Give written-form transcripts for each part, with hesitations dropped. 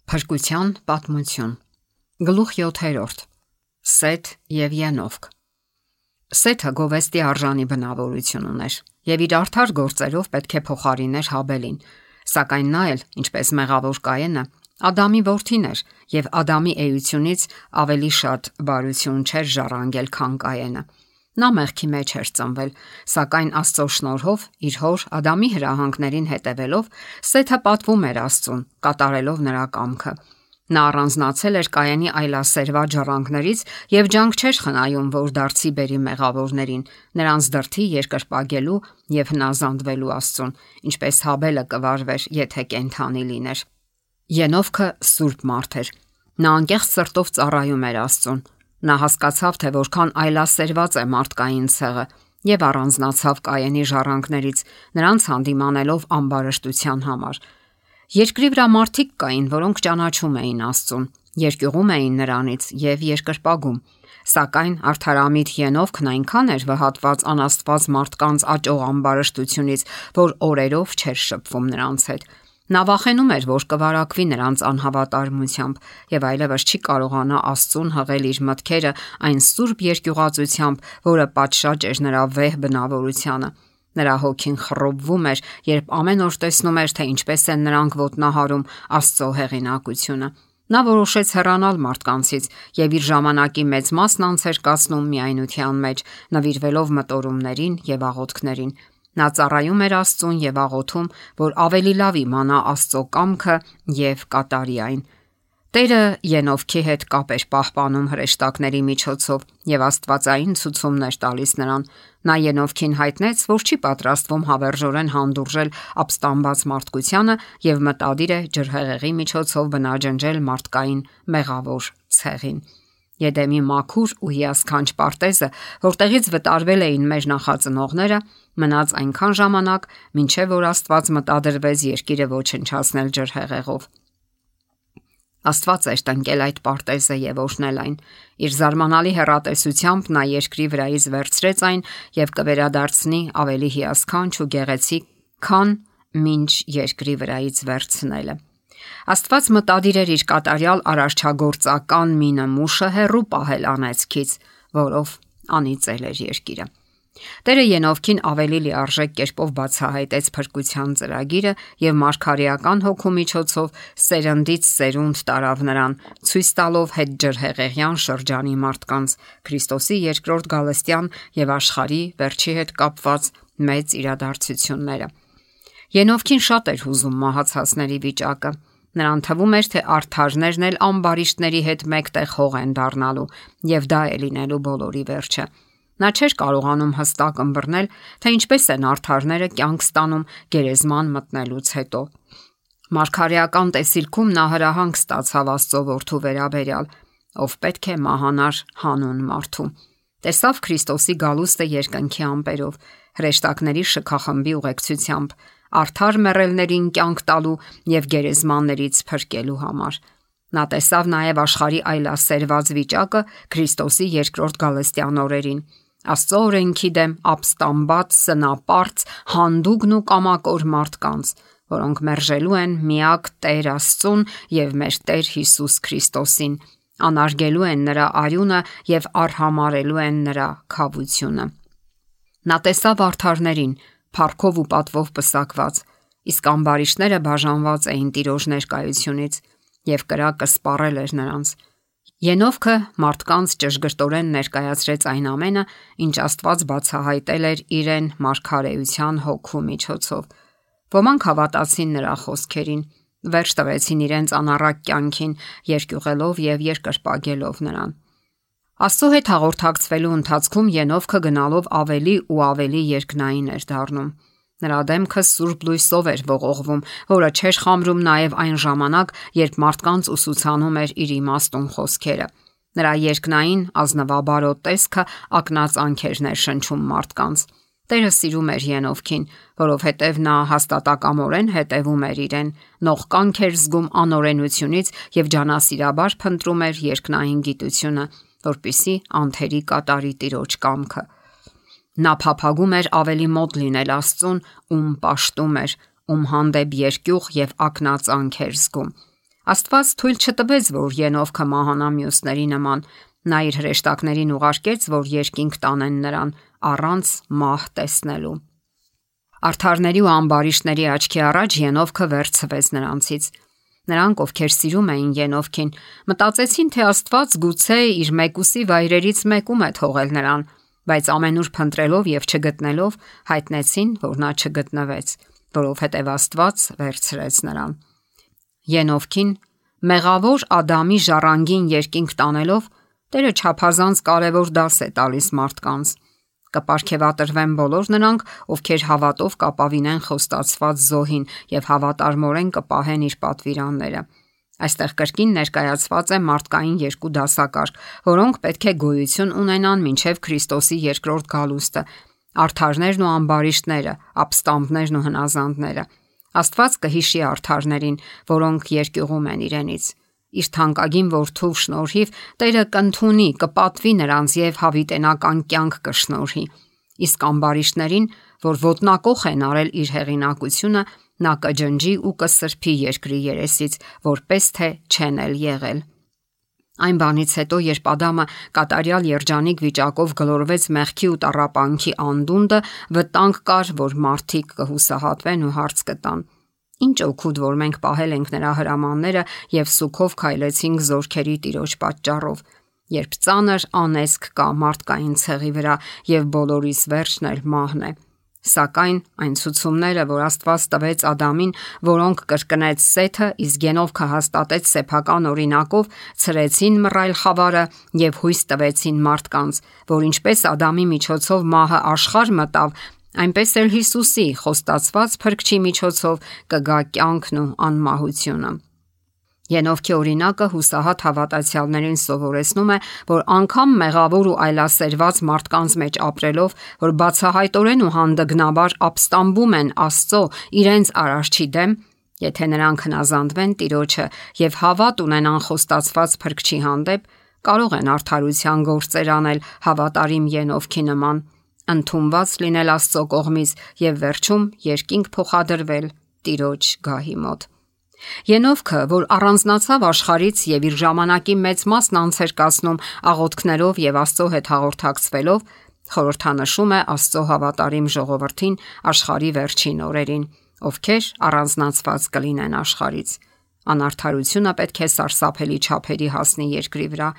Փրկության պատմություն։ Գլուխ 7. Սեթ եւ Ենովք։ Սեթը գովեստի արժանի բնավորություն ուներ եւ իր արդար գործերով պետք է փոխարիներ Հաբելին, սակայն նա էլ, ինչպես մեղավոր Կայենը, Ադամի որդին էր եւ Ադամի էությունից ավելի շատ բարություն չէր ժառանգել, քան Կայենը։ Նա մեղքի մեջ էր ծնվել, սակայն Աստծո շնորհով իր հոր Ադամի հրահանգներին հետևելով Սեթը պատվում էր Աստծուն, կատարելով նրա կամքը։ Նա առանձնացել էր Կայենի այլասերված ժառանգներից եւ ջանք չէր խնայում, որ դարձի բերի մեղավորներին, նրանց դրթի երկրպագելու եւ հնազանդվելու Աստծուն, ինչպես Հաբելը կվարվեր, եթե կենդանի լիներ։ Ենովքը սուրբ մարդ էր։ Նա անկեղծ սրտով ծառայում էր Աստծուն։ Նա հասկացավ, թե որքան այլասերված է մարդկային ցեղը եւ առանձնացավ Կայենի ժառանգներից, նրանց հանդիմանելով ամբարշտության համար։ Երկրի վրա մարդիկ կային, որոնք ճանաչում էին Աստծուն, երկյուղում էին նրանից եւ երկրպագում, սակայն արդարամիտ Ենովքն այնքան էր վհատված անաստված մարդկանց աճող ամբարշտությունից, որ օրերով չէր շփվում նրանց հետ։ Նա վախենում էր, որ կվարակվի նրանց անհավատարմությամբ եւ այլևս չի կարողանա Աստծուն հղել իր մտքերը այն սուրբ երկյուղածությամբ, որը պատշաճ էր նրա վեհ բնավորությանը։ Նրա հոգին խռովվում էր, երբ ամեն օր տեսնում էր, թե ինչպես են նրանք ոտնահարում Աստծո հեղինակությունը։ Նա որոշեց հեռանալ մարդկանցից եւ իր ժամանակի մեծ մասն անց էր կացնում միայնության մեջ, նվիրվելով մտորումներին եւ աղոթքներին։ Նա ծառայում էր Աստծուն եւ աղոթում, որ ավելի լավ իմանա Աստծո կամքը եւ կատարի այն։ Տերը Ենովքի հետ կապ էր պահպանում հրեշտակների միջոցով եւ աստվածային ցուցումներ տալիս նրան։ Նա Ենովքին հայտնեց, որ չի պատրաստվում հավերժորեն հանդուրժել ապստամբած մարդկությանը եւ մտադիր է ջրհեղեղի միջոցով բնաջնջել մարդկային մեղավոր ցեղին։ Եդեմի մաքուր ու հիասքանչ պարտեզը, որտեղից վտարվել էին մեր նախածնողները, մնաց այնքան ժամանակ, մինչև որ Աստված մտադրվեց երկիրը ոչնչացնել ջրհեղեղով։ Աստված էր տնկել այդ պարտեզը եւ օրհնել այն։ Իր զարմանալի հեռատեսությամբ նա երկրի վրայից վերցրեց այն եւ կվերադարձնի ավելի հիասքանչ ու գեղեցիկ, քան մինչ երկրի վրայից վերցնելը։ Աստված մտադիր էր իր կատարյալ արարչագործական մի նմուշը հեռու պահել անեծքից, որով անիծել էր երկիրը։ Տերը Ենովքին ավելի լիարժեք կերպով բացահայտեց փրկության ծրագիրը եւ մարգարեական հոգու միջոցով սերնդից սերունդ տարավ նրան, ցույց տալով հետջրհեղեղյան շրջանի մարդկանց Քրիստոսի երկրորդ գալստյան եւ աշխարհի վերջի հետ կապված մեծ իրադարձությունները։ Ենովքին շատ էր հուզում մահացածների վիճակը։ Նրան թվում էր, թե արդարներն էլ ամբարիշտների հետ մեկտեղ հող են դառնալու եւ դա է լինելու բոլորի վերջը։ Նա չէր կարողանում հստակ ըմբռնել, թե ինչպես են արդարները կյանք ստանում գերեզման մտնելուց հետո։ Մարգարեական տեսիլքում նա հրահանգ ստացավ Աստծո որդու վերաբերյալ, ով պետք է մահանար հանուն մարդու։ Տեսավ Քրիստոսի գալուստը երկնքի ամպերով, հրեշտակների շքախմբի ուղեկցությամբ, արդար մեռելներին կյանք տալու եւ գերեզմաններից փրկելու համար։ Նա տեսավ նաև աշխարհի այլասերված վիճակը Քրիստոսի երկրորդ գալստյան օրերին։ Աստծո օրենքի դեմ ապստամբած, սնապարծ, հանդուգն ու կամակոր մարդկանց, որոնք մերժելու են միակ Տեր Աստծուն եւ մեր Տեր Հիսուս Քրիստոսին, անարգելու են նրա արյունը եւ արհամարելու են նրա քավությունը։ Նա տեսավ արդարներին, փառքով ու պատվով պսակված, իսկ ամբարիշտները բաժանված էին Տիրոջ ներկայությունից եւ կրակը սպառել էր նրանց։ Ենովքը մարդկանց ճշգրտորեն ներկայացրեց այն ամենը, ինչ Աստված բացահայտել էր իրեն մարգարեության հոգու միջոցով։ Ոմանք հավատացին նրա խոսքերին, վերջ տվեցին իրենց անառակ կյանքին, երկյուղելով եւ երկրպագելով նրան։ Աստծո հետ հաղորդակցվելու ընթացքում Ենովքը գնալով ավելի ու ավելի երկնային էր դառնում։ Նրա դեմքը սուրբ լույսով էր ողողվում, որը չէր խամրում նաև այն ժամանակ, երբ մարդկանց ուսուցանում էր իր իմաստուն խոսքերը։ Նրա երկնային ազնվաբարոտ տեսքը ակնածանք էր ներշնչում մարդկանց։ Տերը սիրում էր Ենովքին, որովհետև նա հաստատակամորեն հետևում էր իրեն, նողկանք էր զգում անօրենությունից եւ ջանասիրաբար փնտրում էր երկնային գիտությունը, որպիսի անթերի կատարի Տիրոջ կամքը։ Նա փափագում էր ավելի մոտ լինել Աստծուն, ում պաշտում էր, ում հանդեպ երկյուղ եւ ակնածանք էր զգում։ Աստված թույլ չտվեց, որ Ենովքը մահանա մյուսների նման։ Նա իր հրեշտակներին ուղարկեց, որ երկինք տանեն նրան առանց մահ տեսնելու։ Արթարների ու ամբարիշտների աչքի առաջ Ենովքը վերցվեց նրանցից։ Նրանք, ովքեր սիրում էին Ենովքին, մտածեցին, թե Աստված գուցե իր մեկուսի վայրերից մեկում է թողել նրան, բայց ամենուր փնտրելով եւ չգտնելով հայտնեցին, որ նա չգտնվեց, որովհետեւ Աստված վերցրեց նրան։ Ենովքին մեղավոր Ադամի ժառանգին երկինք տանելով Տերը չափազանց կարևոր դաս է տալիս մարդկանց։ Կպարգևատրվեն բոլոր նրանք, ովքեր հավատով կապավինեն խոստացված զոհին եւ հավատարմորեն կպահեն իր պատվիրանները։ Այստեղ կրկին ներկայացված է մարդկային երկու դասակարգ, որոնք պետք է գոյություն ունենան մինչև Քրիստոսի երկրորդ գալուստը՝ արթարներն ու ամբարիշտները, ապստամբներն ու հնազանդները։ Աստված կհիշի արթարներին, որոնք երկյուղում են իրենից։ Իր թանկագին որդու շնորհիվ Տերը կընդունի, կպատվի նրանց եւ հավիտենական կյանք կշնորհի։ Իսկ ամբարիշտներին, որ ոտնակոխ են արել իր հեղինակությունը, նա կջնջի ու կսրբի երկրի երեսից, որպես թե չեն էլ եղել։ Այն բանից հետո, երբ Ադամը կատարյալ երջանիկ վիճակով գլորվեց մեղքի ու տառապանքի անդունդը, վտանգ կար, որ մարդիկ կհուսահատվեն ու հարց կտան. Ինչ օգուտ, որ մենք պահել ենք նրա հրամանները եւ սուգով քայլեցինք զորքերի տիրոջ պատճառով, երբ ծանր անեծք կա մարդկային ցեղի վրա եւ բոլորիս վերջն էլ մահն է։ Սակայն այն ցուցումները, որ Աստված տվեց Ադամին, որոնք կրկնեց Սեթը, իսկ Ենովքը հաստատեց սեփական օրինակով, ցրեցին մռայլ խավարը եւ հույս տվեցին մարդկանց, որ ինչպես Ադամի միջոցով մահը աշխարհ մտավ, այնպես էլ Հիսուսի խոստացված փրկչի միջոցով կգա կյանքն ու անմահությունը։ Ենովքի օրինակը հուսահատ հավատացյալներին սովորեցնում է, որ անգամ մեղավոր ու այլասերված մարդկանց մեջ ապրելով, որ բացահայտորեն ու հանդգնաբար ապստամբում են Աստծո իրենց արարչի դեմ, եթե նրանք հնազանդվեն Տիրոջը եւ հավատ ունենան խոստացված փրկչի հանդեպ, կարող են արդարության գործեր անել հավատարիմ Ենովքի նման, ընդունված լինել Աստծո կողմից եւ վերջում երկինք փոխադրվել Տիրոջ գահի մոտ։ Ենովքը, որ առանձնացավ աշխարից եւ իր ժամանակի մեծ մասն անց էր կացնում աղոթքներով եւ Աստծո հետ հաղորդակցվելով, խորհրդանշում է Աստծո հավատարիմ ժողովրդին աշխարի վերջին օրերին, ովքեր առանձնացված կլինեն աշխարից։ Անարդարությունը պետք է սարսափելի չափերի հասնի երկրի վրա։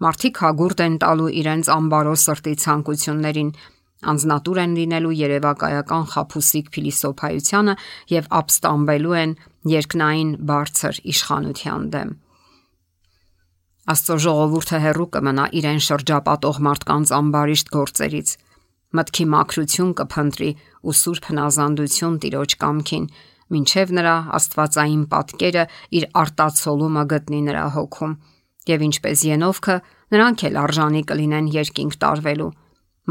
Մարդիկ հագուրդ են տալու իրենց ամբարո սրտի ցանկություններին, անznատուր են լինելու երևակայական խաբուսիկ փիլիսոփայությանը եւ ապստամբելու են երկնային բարձր իշխանության դեմ։ Աստծո ժողովուրդը հեռու կմնա իրեն շրջապատող մարդկանց ամբարիշտ գործերից։ Մտքի մաքրություն կփնտրի ու սուրբ հնազանդություն Տիրոջ կամքին, մինչև նրա աստվածային պատկերը իր արտացոլումը գտնի նրա հոգում։ Եվ ինչպես Ենովքը, նրանք էլ արժանի կլինեն երկինք տարվելու։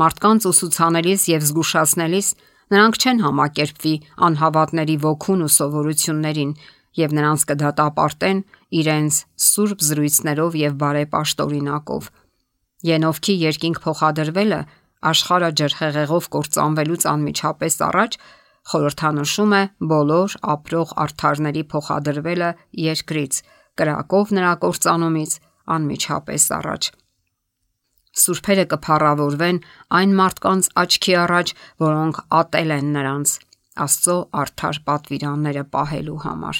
Մարդկանց ուսուցանելիս եւ զգուշացնելիս նրանք չեն համակերպվի անհավատների ոգուն ու սովորություններին եւ նրանց կդատապարտեն իրենց սուրբ զրույցներով եւ բարեպաշտօրինակով։ Ենովքի երկինք փոխադրվելը աշխարհը ջրհեղեղով կործանվելուց անմիջապես առաջ խորհրդանշում է բոլոր ապրող արդարների փոխադրվելը երկրից, կրակով նրա կործանումից անմիջապես առաջ։ Սուրբերը կփառավորվեն այն մարդկանց աչքի առաջ, որոնք ատել են նրանց Աստծո արդար պատվիրանները պահելու համար։